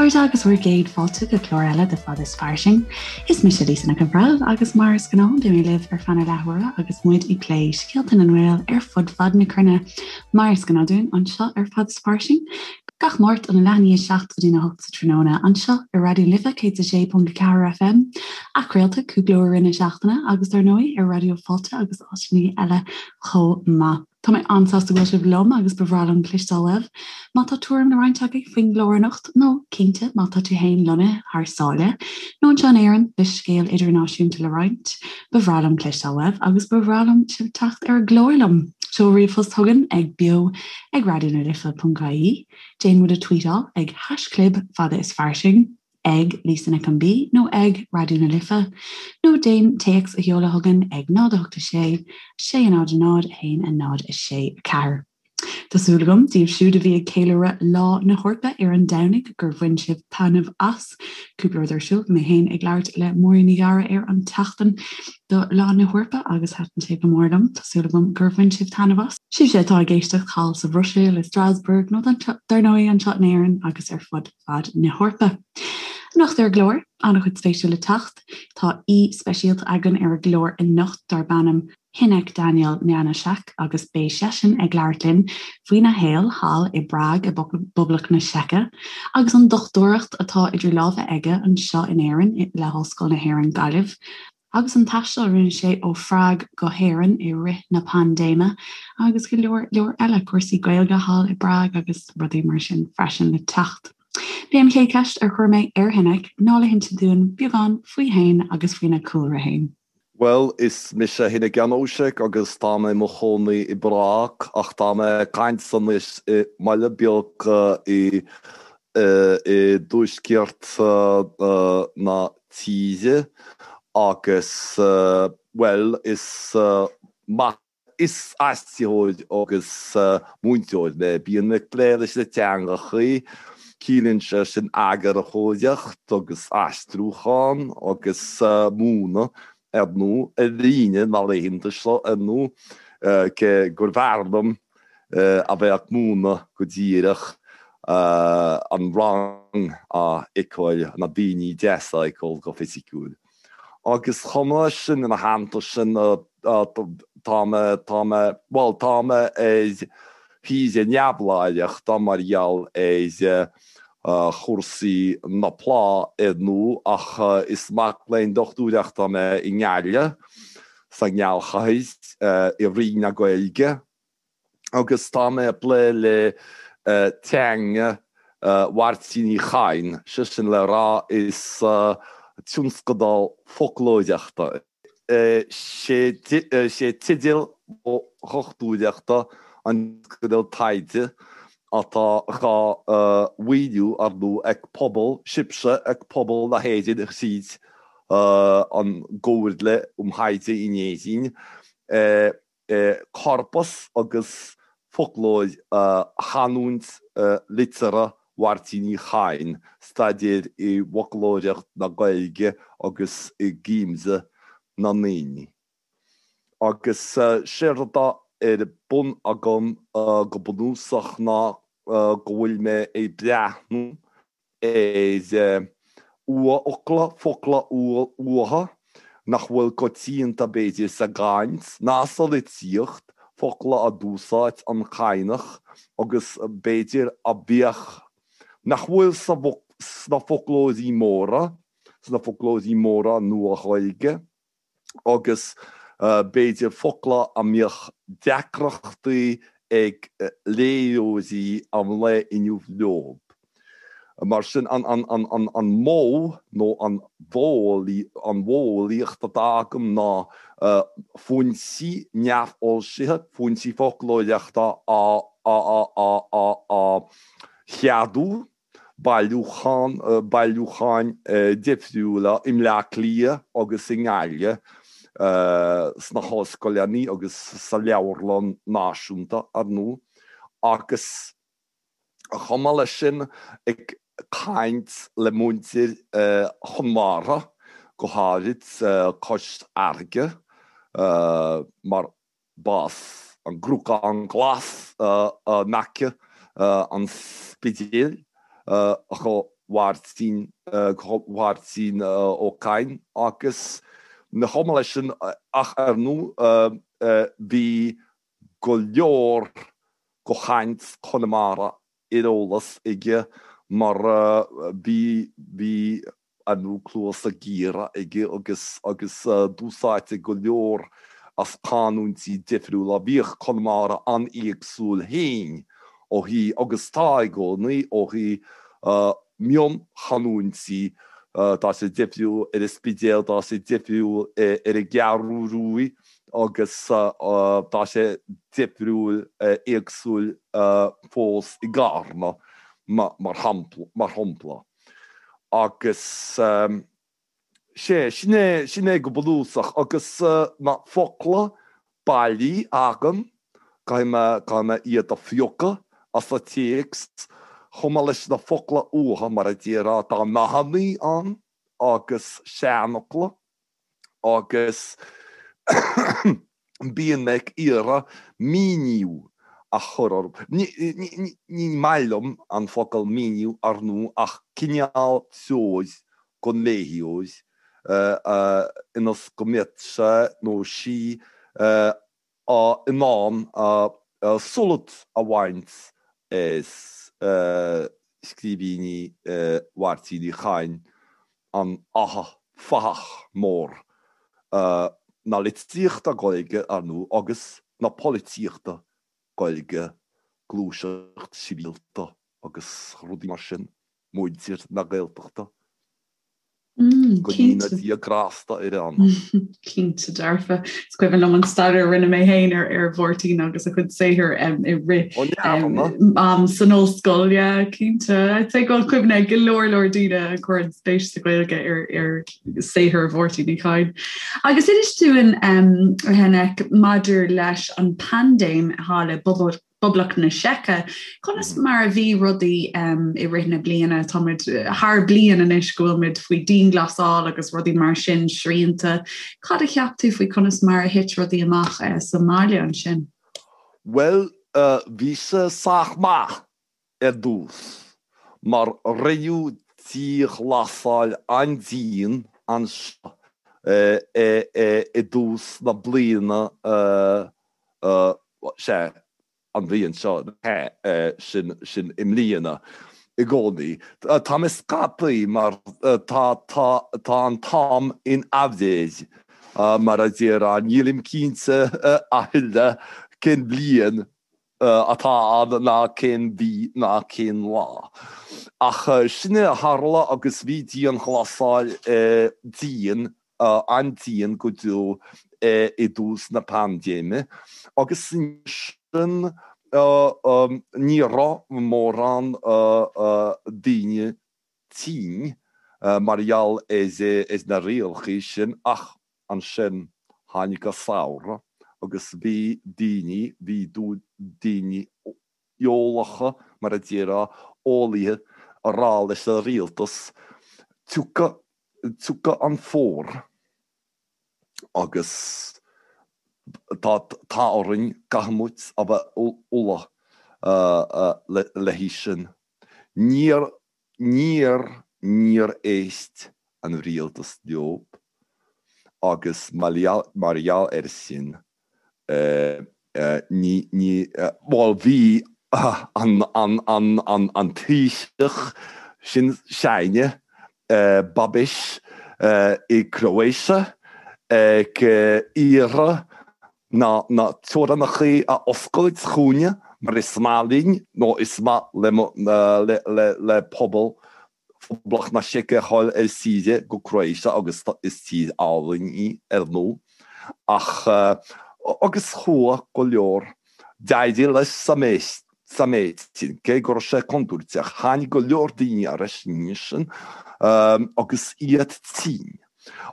chairde agus bhur gcéad fáilte go clár eile de Fada is Fairsing. Is mise Lisa Nic an Bhreithimh agus mar is gnáth beidh mé libh ar feadh na leathuaire agus muid ag plé scéalta na nGael ar fud fad na cruinne mar is gnáth dúinn anseo ar Fada is Fairsing gach Máirt óna leath i ndiaidh 7 go dtína 8 sa tráthnóna anseo ar Raidió na Life 106.4 FM, athchraolta cúpla uair i rith na seachtaine agus dar ndóigh ar Raidió Fáilte agus áiteanna eile chomh maith. Tá mé an-sásta go bhfuil sibh liom agus ba bhreá liom cloisteáil uaibh má tá tuairim le roinnt agaibh faoin gclár anocht nó, cinnte, má tá tú féin lonnaithe thar sáile nó anseo in Éirinn le scéal idirnáisiúnta le roinnt, ba bhreá liom cloisteáil uaibh agus ba bhreá liom sibh teacht ar an gclár liom. Seol ríomhphost chugainn ag beo ag raidionalife.ie, déan muid a tweetáil ag haischlib fada is fairsing. ag Lisa Nic an B nó ag Raidió na Life, nó déan téacs a sheoladh chugainn ag 0 8 6 6 0 0 1 0 6 4. Tá súil agam, daoibh siúd a bhí ag ceiliúradh Lá na hEorpa ar an Domhnaigh, gur bhain sibh taitneamh as. Cúpla rud ar siúl, mé féin ag labhairt le Máirín Ní Ghadhra ar an tseachtain do Lá na hEorpa agus thaitin sé go mór liom. Tá súil agam gur bhain sibh taitneamh as. Sibhse atá ag éisteacht thall sa Bhruiséil, i Strasbourg nó dar ndóigh anseo in Éirinn agus ar fud fad na hEorpa. Anocht ar an gclár, an-chuid spéisiúil le teacht. Tá aoi speisialta againn ar an gclár anocht darb ainm Hynek Daniel Janoušek agus beidh seisean ag labhairt linn faoina shaol thall i bPrág i bPoblacht na Seice agus an dochtúireacht atá idir lámha aige anseo in Éirinn le hOllscoil na hÉireann Gaillimh. agus an taisteal a rinne sé ó Phrág go hÉirinn i rith na paindéime agus go leor leor eile, cúrsaí Gaeilge thall i bPrág agus rudaí mar sin freisin le teacht. B'é an chéad cheist ar chuir mé ar Hynek ná le hinse dúinn beagán faoi fhéin agus faoina chúlra fhéin. Bhuel, is mise Hynek Janoušek agus tá mé i mo chónaí i bPrág ach tá mé ag caint anois i mbaile beag i i dtuaisceart na tíre agus, bhuel, is maith. Is aistritheoir agus múinteoir mé. Bíonn mé ag plé leis na teangachaí, ciallaíonn sé sin eagarthóireacht agus aistriúchán agus múineadh, ar ndóigh, ar líne na laethanta seo, ar ndóigh, cé gurbh fhearr liom a bheith ag múineadh go díreach, an rang a fheiceáil, na daoine deasa a fheiceáil go fisiciúil. Agus chomh maith leis sin, ina theannta sin, tá mé, tá mé, bhuel, tá mé ar shaoire neamhláithreachta mar gheall ar chúrsaí na plá, ar ndóigh, ach is mac léinn dochtúireachta mé i nGaillimh, sa ngealchathair, i Roinn na Gaeilge. agus tá mé ag plé le teanga Mháirtín Uí Chadhain, sé sin le rá is tionscadal foclóireachta é. Sé teideal mo dhochtúireachta an tionscadal taighde atá dhá mhaoiniú, ar ndóigh, ag pobal, sibhse, ag pobal na hÉireann thríd an gComhairle um Thaighde in Éirinn. Corpas agus foclóir chanúint liteartha Mháirtín Uí Chadhain, staidéar i bhfoclóireacht na Gaeilge agus i gcuimse na ndaoine. Agus séard atá ar bun agam go bunúsach ná go bhfuil mé ag breathnú ar fhocla, focla uatha nach bhfuil coitianta b'fhéidir sa gcaint ná sa litríocht, focla a d'úsáid an Cadhnach agus b'fhéidir a bheadh, nach bhfuil sna foclóirí móra, sna foclóirí móra Nua-Ghaeilge. agus b'fhéidir focla a mbeadh deacrachtaí ag léitheoirí an lae inniu leo. Mar sin, an modh nó an mhodheolaíocht atá agam ná foinsí neamhfhoilsithe, foinsí foclóireachta a cheadú bailiúchán, bailiúcháin difriúla i mBleá Cliath agus i nGaillimh, sna hollscoileanna agus sa Leabharlann Náisiúnta, ar ndóigh, agus chomh maith leis sin ag caint le muintir Chonamara, go háirid cois Fharraige, mar B'as an gCnocán Glas in aice an Spidéil do Mháirtín, go Mháirtín Ó Cadhain agus chomh maith leis sin ach ar ndóigh bhí go leor go chaint Chonamara ar eolas aige mar bhí, bhí ar ndóigh cluasa géara aige agus, agus d'úsáidtí go leor as canúintí difriúla. Bhíodh Conamara an-éagsúil féin ó thaobh, agus tá i gcónaí, ó thaobh mionchanúintí, tá sé difriúil ar an Spidéal, tá sé difriúil ar an gCeathrú Ruaidh agus tá sé difriúil, éagsúil fós i gCarna, mar shampla. Agus sea, sin é, sin é go bunúsach. Agus na focla bailí agam, caithfidh mé, caithfidh mé iad a phiocadh as an téacs, chomh maith leis na focla uathu, mar a déarfá, tá nathannaí ann agus seanfhocla. agus bíonn mé ag iarraidh míniú a chur orthu. Ní maith liom an focal míniú, ar ndóigh, ach cineál treoir don léitheoir ionas go mbeadh sé nó sí in ann sult a bhaint as scríbhinní Mháirtín Uí Chadhain, an fathach mór na litríochta Gaeilge, ar ndóigh, agus na polaitíochta Gaeilge, gluaiseacht sibhialta agus rudaí mar sin, muintir na Gaeltachta. Go ndéana Dia grásta ar a anam. Cinnte dearfa. Is cuimhin liom an staidéar a rinne mé féin ar ar Mháirtín agus a chuid saothair i rith am san ollscoil. Yeah, cinnte. I'd say go bhfuil cuimhne ag go leor leor daoine a chuireann spéis sa Ghaeilge ar ar saothar Mháirtín Uí Chadhain. Agus inis dúinn a Hynek maidir leis an bpaindéim thall i bPoblacht na Seice. Conas mar a bhí rudaí i rith na bliana? Táimid thar bliain anois go bhfuil muid faoi dianghlasáil agus rudaí mar sin, srianta. Cad a cheap tú faoi conas mar a thit rudaí amach sa mbaile ansin? Bhuel, bhí sé sách maith ar dtús, mar rinneadh dianghlasáil an-dian anseo i dtús na bliana, sea, an bhliain seo, sin, sin i mbliana i gcónaí. Tá mé scaipthe mar tá, tá, tá an t-am in aimhréidh, mar a déarfá, nílim cinnte a thuilleadh cén bhliain atá ann ná cén mhí ná cén lá. Ach sin é a tharla agus bhí dianghlasáil dian, an-dian go deo i dtús na paindéime agus ansin ní raibh mórán daoine tinn mar gheall ar na rialacha sin ach Ansin tháinig an samhradh agus bhí daoine, bhí daoine eolacha, mar a déarfá, eolaithe, a rá leis an rialtas, tiocfaidh, tiocfaidh an fómhar agus tá, tá orainn, caithfidh muid a bheith ullamh le haghaidh sin. Níor Níor, níor éist an rialtas leo agus mar gheall air sin, ní, ní, bhuel bhí an, an, an, an, an Taoiseach sin s'againne, Babiš, i Croatia ag iarraidh na na teorannachaí a oscailt chugainne mar is maith linn nó is maith le le le le pobal Phoblacht na Seice a ghabháil ar saoire go Croatia agus is tír álainn í ar ndóigh ach agus chuaigh go leor d'éirigh leis sa méid sa méid sin cé go raibh sé contúirteach tháinig go leor daoine ar ais ansin agus iad tinn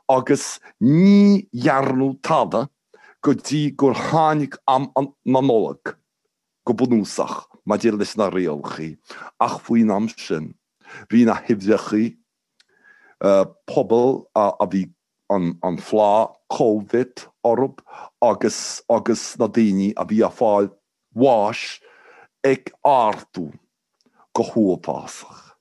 agus ní dhearnadh tada go dtí gur tháinig am na Nollag, go bunúsach, maidir leis na rialachaí, ach faoin am sin, bhí na huimhreachaí pobal a bhí an phlá Covid orthu agus agus na daoine a bhí ag fáil bháis ag ardú go huafásach.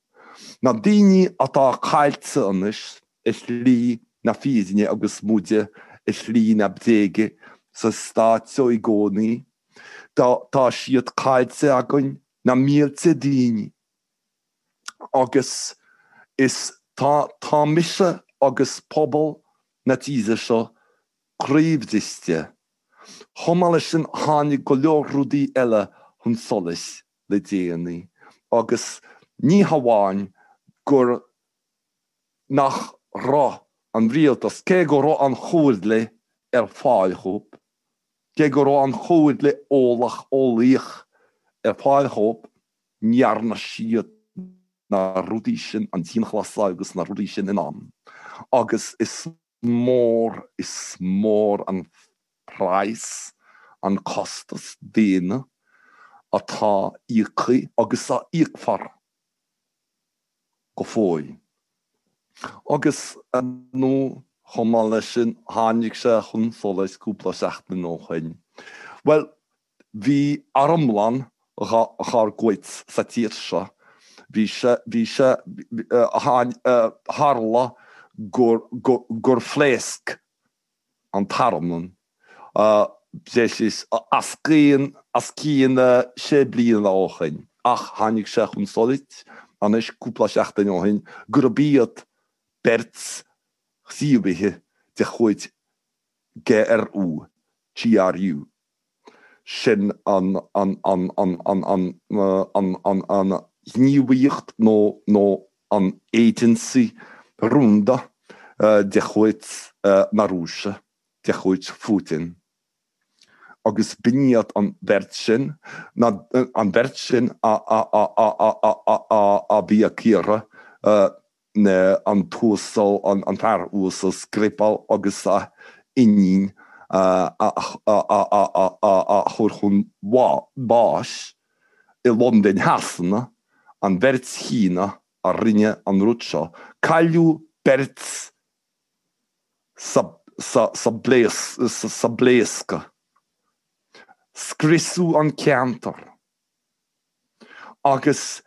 Na daoine atá caillte anois i slí na fírinne agus muide i slí na bréige sa stát seo i gcónaí, tá siad caillte againn, na mílte daoine. Agus is tá tá mise agus pobal na tíre seo croíbhriste. Chomh maith leis sin tháinig go leor rudaí eile chun solais le déanaí agus ní hamháin gur nach raibh an rialtas, cé go raibh an chomhairle ar fáil dhóibh, cé go raibh an chomhairle eolach eolaíoch ar fáil dhóibh, ní dhearna siad na rudaí sin, an dianghlasáil agus na rudaí sin in am agus is mór, is mór an praghas, an costas daonna atá íoctha agus a íocfar go fóill. Agus, ar ndóigh, chomh maith leis sin, tháinig sé chun solais cúpla seachtain ó shin, bhuel, Bhí armlann dhár gcuid sa tír seo. Bhí sé, bhí sé, tharla gur, gur phléasc an t-armlann breis is os cionn, os cionn sé bliana ó shin ach tháinig sé chun solais anois cúpla seachtain ó shin gurb iad beirt ghníomhaithe de chuid GRU, GRU. Sin an ghníomhaíocht nó an agency rúnda de chuid na Rúise, de chuid Phutin. Agus b'in iad an bheirt sin, an bheirt sin a bhí ag iarraidh an t-uasal, an fear uasal Skripal agus a iníon a chur chun báis i Londain Shasana, an bheirt chéanna a rinne an rud seo. Cailleadh beirt sa bpléascadh. Scriosadh an ceantar. Agus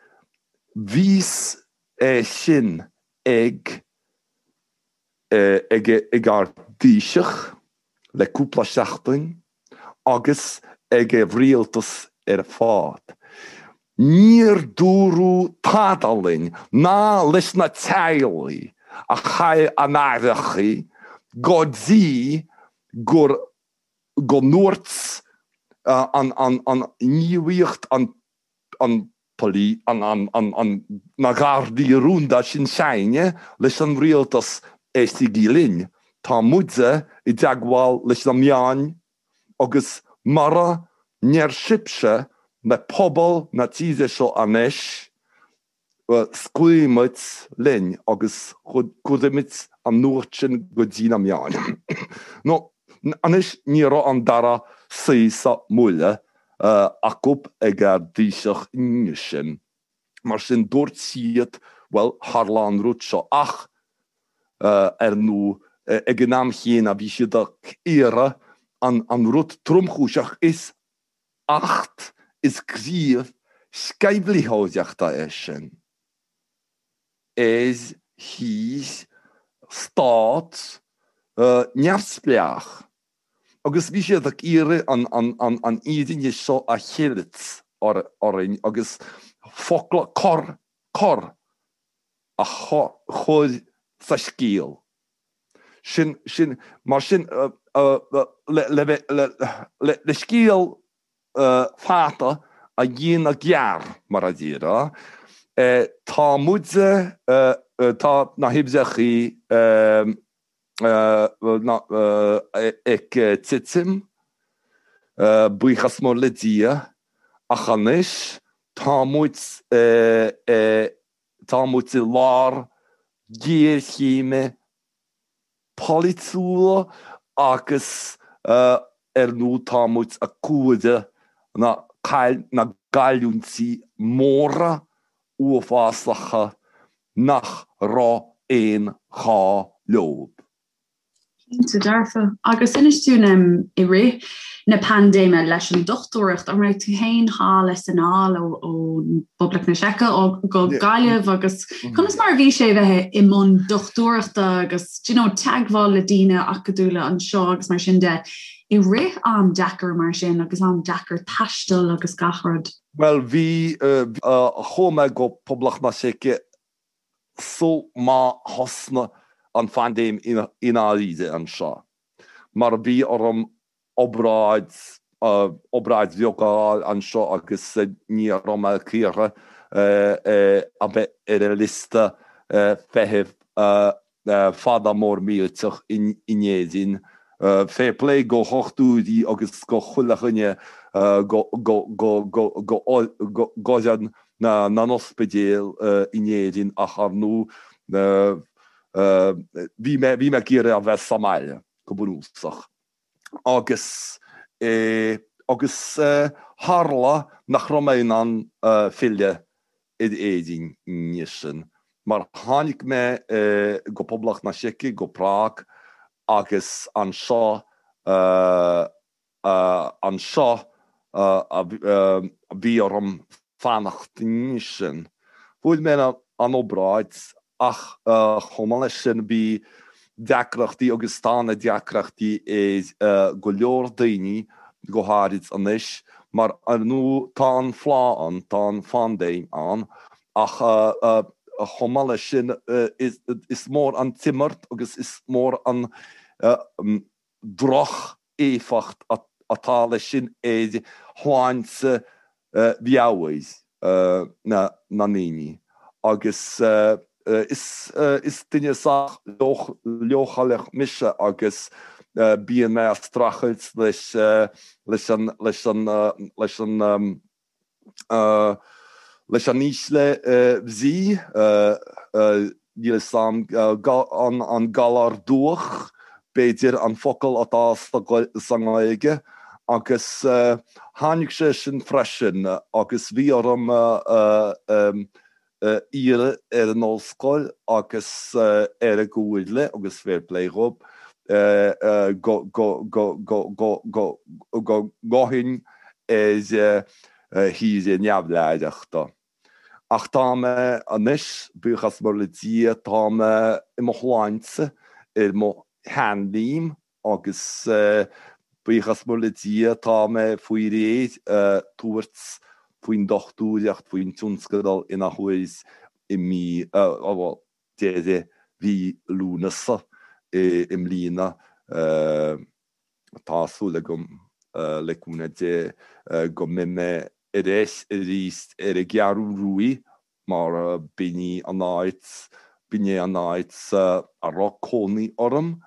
bhí a fhios é sin ag ag ag ár dTaoiseach le cúpla seachtain agus ag an rialtas ar fad. Níor dúradh tada linn ná leis na teaghlaigh a chaill a n-aithreachaí go dtí gur go ndúirt an ghníomhaíocht, an na Gardaí Rúnda sin s'againne leis an rialtas éistigí linn, tá muide i dteagmháil leis na meáin agus mura ndeir sibhse le pobal na tíre seo anois, scaoilfimid linn agus cuirfimid an nuacht sin go dtí na meáin. Nó anois ní raibh an dara suí sa mbuaile acu ag ár dTaoiseach inniu sin. Mar sin dúirt siad, bhuel, tharla an rud seo ach, ar ndóigh, ag an am chéanna bhí siad ag iarraidh an rud tromchúiseach is Acht is gníomh sceimhlitheoireachta é sin. Ar thír, stát, neamhspleách. Agus bhí siad ag iarraidh an fhírinne seo a cheilt orainn agus focla cor, cor a chur sa scéal. Sin, sin, mar sin, le, le, le scéal fada a dhéanamh gearr, mar a déarfá, tá muide, tá na huimhreachaí ag titim, buíochas mór le Dia, ach anois tá muid, Tá muid i lár géarchéime polaitiúla agus ar ndóigh tá muid ag comhaireamh na na gcailliúintí móra uafásacha nach raibh aon ghá leo. Cinnte dearfa. Agus inis dúinn i rith na paindéime leis an dochtúireacht, an raibh tú féin thall is anall ó Phoblacht na Seice go Gaillimh agus conas mar a bhí sé bheith i mbun dochtúireachta agus do you know, teagmháil le daoine acadúla anseo agus mar sin de i rith am deacair mar sin agus am deacair taistil agus gach rud? Bhuel bhí, chuaigh mé go Poblacht na Seice sul má thosnaigh an phaindéim i ndáiríre anseo, mar bhí orm obráid, obráid bheag a fháil anseo agus ní raibh mé ag iarraidh a bheith ar an liosta feithimh fada mór millteach in Éirinn. Fair play go dhochtúirí agus go chuile dhuine, go fhoireann na n-ospidéal in Éirinn ach ar ndóigh bhí mé bhí mé ag iarraidh a bheith sa mbaile, go bunúsach. Agus agus tharla nach raibh mé in ann filleadh ar Éirinn ansin, mar tháinig mé go Poblacht na Seice, go Prág, agus anseo, anseo a bhí orm fanacht ansin. Fuair mé an obráid ach chomh maith leis sin bhí deacrachtaí agus tá na deacrachtaí ar go leor daoine, go háirid anois, mar ar ndóigh tá an phlá ann, tá an phaindéim ann ach chomh maith leis sin is mór an t-imirt agus is mór an droch-éifeacht atá leis sin ar shláinte mheabhair na ndaoine agus is duine sách leochaileach mise agus bíonn mé ag streachailt leis leis an leis an leis an Leis an ísle bhrí, níl 'fhios a'm an galar dubhach, b'fhéidir, an focal atá sa nGaeilge, agus tháinig sé sin freisin agus bhí orm iarraidh ar an ollscoil agus ar an gcomhairle agus fair play dhóibh go ngabhfainn ar shaoire neamhleithreachta. Ach tá mé anois, buíochas mór le Dia, tá mé i mo shláinte, ar mo sheanléim Agus buíochas mór le Dia, tá mé faoi réir tabhairt faoin dochtúireacht, faoin tionscadal in athuair i mí, bhuel, deireadh mhí Lúnasa i mbliana. Tá súil agam, le cúnamh Dé, go mbeidh mé ar ais arís ar an gCeathrú Ruaidh mar b'in í an áit, b'in é an áit a raibh cónaí orm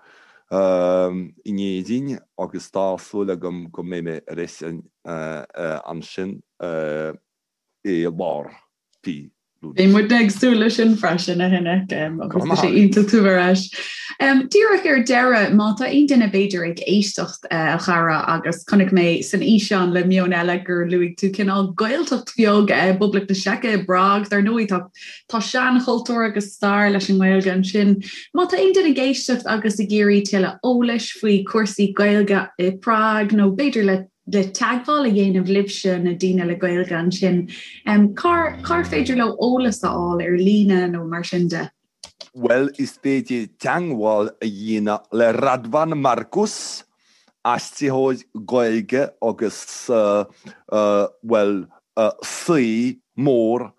in Éirinn agus tá súil agam go mbeidh mé ar ais ansin i lár mhí Lúnasa. Beidh muidne ag súil leis sin freisin, a Hynek, agus tá sé iontach tú ar ais. Díreach ar deireadh, má tá aon duine b'fhéidir ag éisteacht, a chara, agus chonaic mé san fhíseán le Meon Eile gur luaigh tú cineál Gaeltacht bheag i bPoblacht na Seice, i bPrág, dar ndóigh tá tá seanchultúr agus stair leis an nGaeilge ansin. Má tá aon duine ag éisteacht agus ag iarraidh tuilleadh eolais faoi chúrsaí Gaeilge i bPrág nó b'fhéidir le le teagmháil a dhéanamh libhse, na daoine le Gaeilge ansin, cár cár féidir leo eolas a fháil ar líne nó mar sin de? Bhuel, is féidir teagmháil a dhéanamh le Radvan Markus, aistritheoir Gaeilge agus, bhuel, saoi mór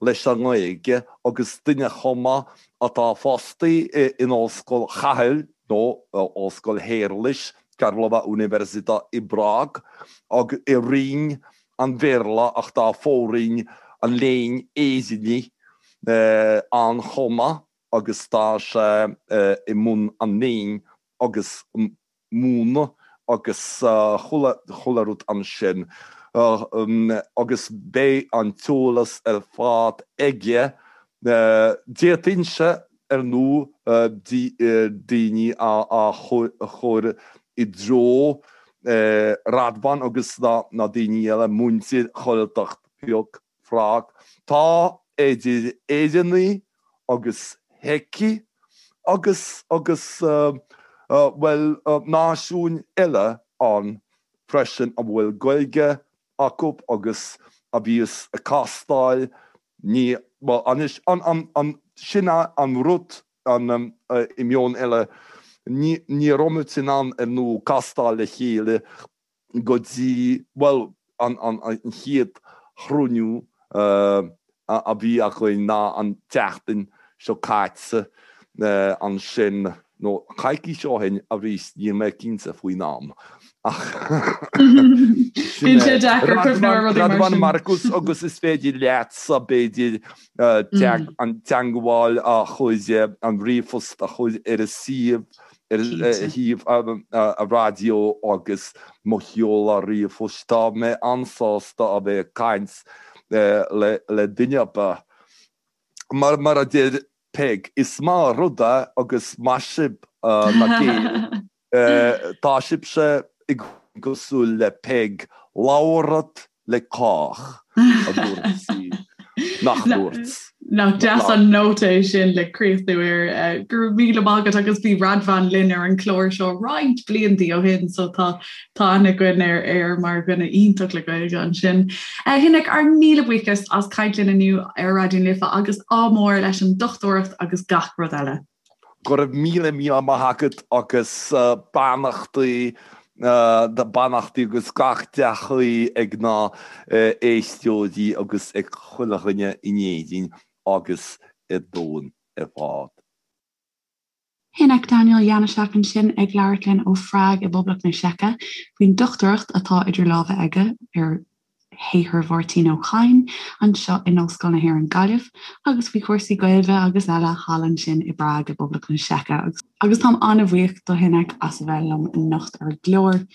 leis an nGaeilge agus duine chomh maith atá fostaí in Ollscoil Chathail nó Ollscoil Shéarlais, Karlova Univerzita i bPrág, agus i Roinn an Bhéarla ach tá fo-roinn an Léinn Éireannaigh ann chomh maith agus tá sé i mbun an léinn agus múineadh agus chuile rud ansin agus beidh an t-eolas ar fad aige. D'fhéadfainnse ar ndóigh daoine a chur i dtreo Radvan agus na daoine eile, muintir Ghaeltacht bheag Phrág. Tá idir Éireannaigh agus Seicigh agus agus. Bhuel, náisiúin eile ann freisin a bhfuil Gaeilge acu agus a bhíos ag castáil, ní, bhuel, anois, an, an, an, sin an rud, an, i Meon Eile, ní, ní raibh muid in ann, ar ndóigh, castáil le chéile go dtí, bhuel, an, an, an chéad chruinniú a bhí againn ná an tseachtain seo caite ansin, nó coicís ó shin arís, níl mé cinnte faoin am ach sin é. Radovan Markus agus is féidir leatsa b'fhéidir an teagmháil a chur, an ríomhphost a chur ar an suíomh, ar shuíomh an raidió agus mo sheoladh ríomhphoist. Tá mé an-sásta a bheith ag caint le duine ar bith. Mar mar a deir Peig, is maith an rud é agus maith sibh na Gaeil, tá sibhse i gcosúil le Peig, labhrat le cách, a dúirt sí. Nach ndúirt? Nach deas an nóta é sin le críochnú air. Go raibh míle maith agat agus bhí Radvan linn ar an chlár seo roinnt blianta ó shin so tá tá aithne againn air air mar dhuine iontach le Gaeilge ansin. A Hynek, ár míle buíochas as caint linn inniu ar Raidió na Life agus ádh mór leis an dochtúireacht agus gach rud eile. Go raibh míle míle maith agat agus beannachtaí beannachtaí agus gach dea-ghuí ag na éisteoirí agus ag chuile dhuine in Éirinn agus ar domhan ar fad. Hynek Daniel Janoušek ansin ag labhairt linn ó Phrág i bPoblacht na Seice faoin dochtúireacht atá idir lámha aige ar shaothar Mháirtín Ó Cadhain anseo in Ollscoil na hÉireann Gaillimh agus faoi chúrsaí Gaeilge agus eile thall ansin i bPrág i bPoblacht na Seice agus táim an-bhuíoch do Hynek as a bheith liom anocht ar an gclár.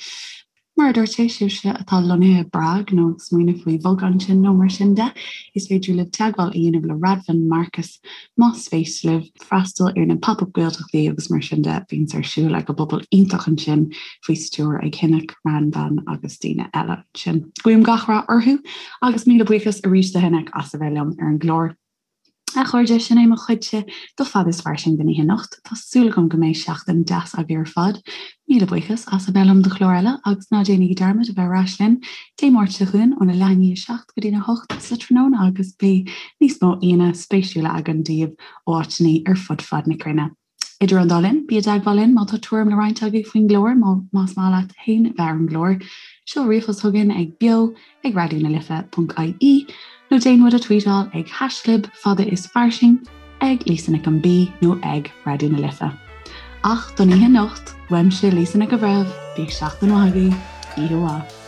Mar a dúirt sé, sibhse atá lonnaithe i bPrág nó ag smaoineamh faoi bhogadh ansin nó mar sin de, is féidir libh teagmháil a dhéanamh le Radvan Markus más spéis libh freastal ar na Pop-Up Gaeltachtaí agus mar sin de a bhíonns ar siúl ag an bpobal iontach ansin faoi stiúir ag Hynek, Radvan agus daoine eile ansin. Guím gach rath orthu agus míle buíochas arís do Hynek as a bheith liom ar an gclár. A chairde, sin é mo chuidse do Fada is Fairsing don oíche anocht. Tá súil agam go mbeidh seachtain deas agaibh ar fad. Míle buíochas as a bheith liom do chlár eile agus ná déanaigí dearmad a bheith ar ais linn Dé Máirt seo chugainn óna leath i ndiaidh a 7 go dtína 8 sa tráthnóna agus beidh níos mó aíonna spéisiúla againn daoibh ó áiteanna ar fud fad na cruinne. Idir an dá linn, bí i dteagmháil linn má tá tuairim le roinnt agaibh faoin gclár, más maith leat féin bheith ar an gclár, seol ríomhphost chugainn ag beo ag raidionalife.ie nó déan muid a tweetáil ag haischlib fada is fairsing, ag Lisa Nic an B nó ag Raidió na Life. Ach don oíche anocht, uaimse Lisa Nic an Bhreithimh, bíodh seachtain mhaith agaibh, oíche mhaith.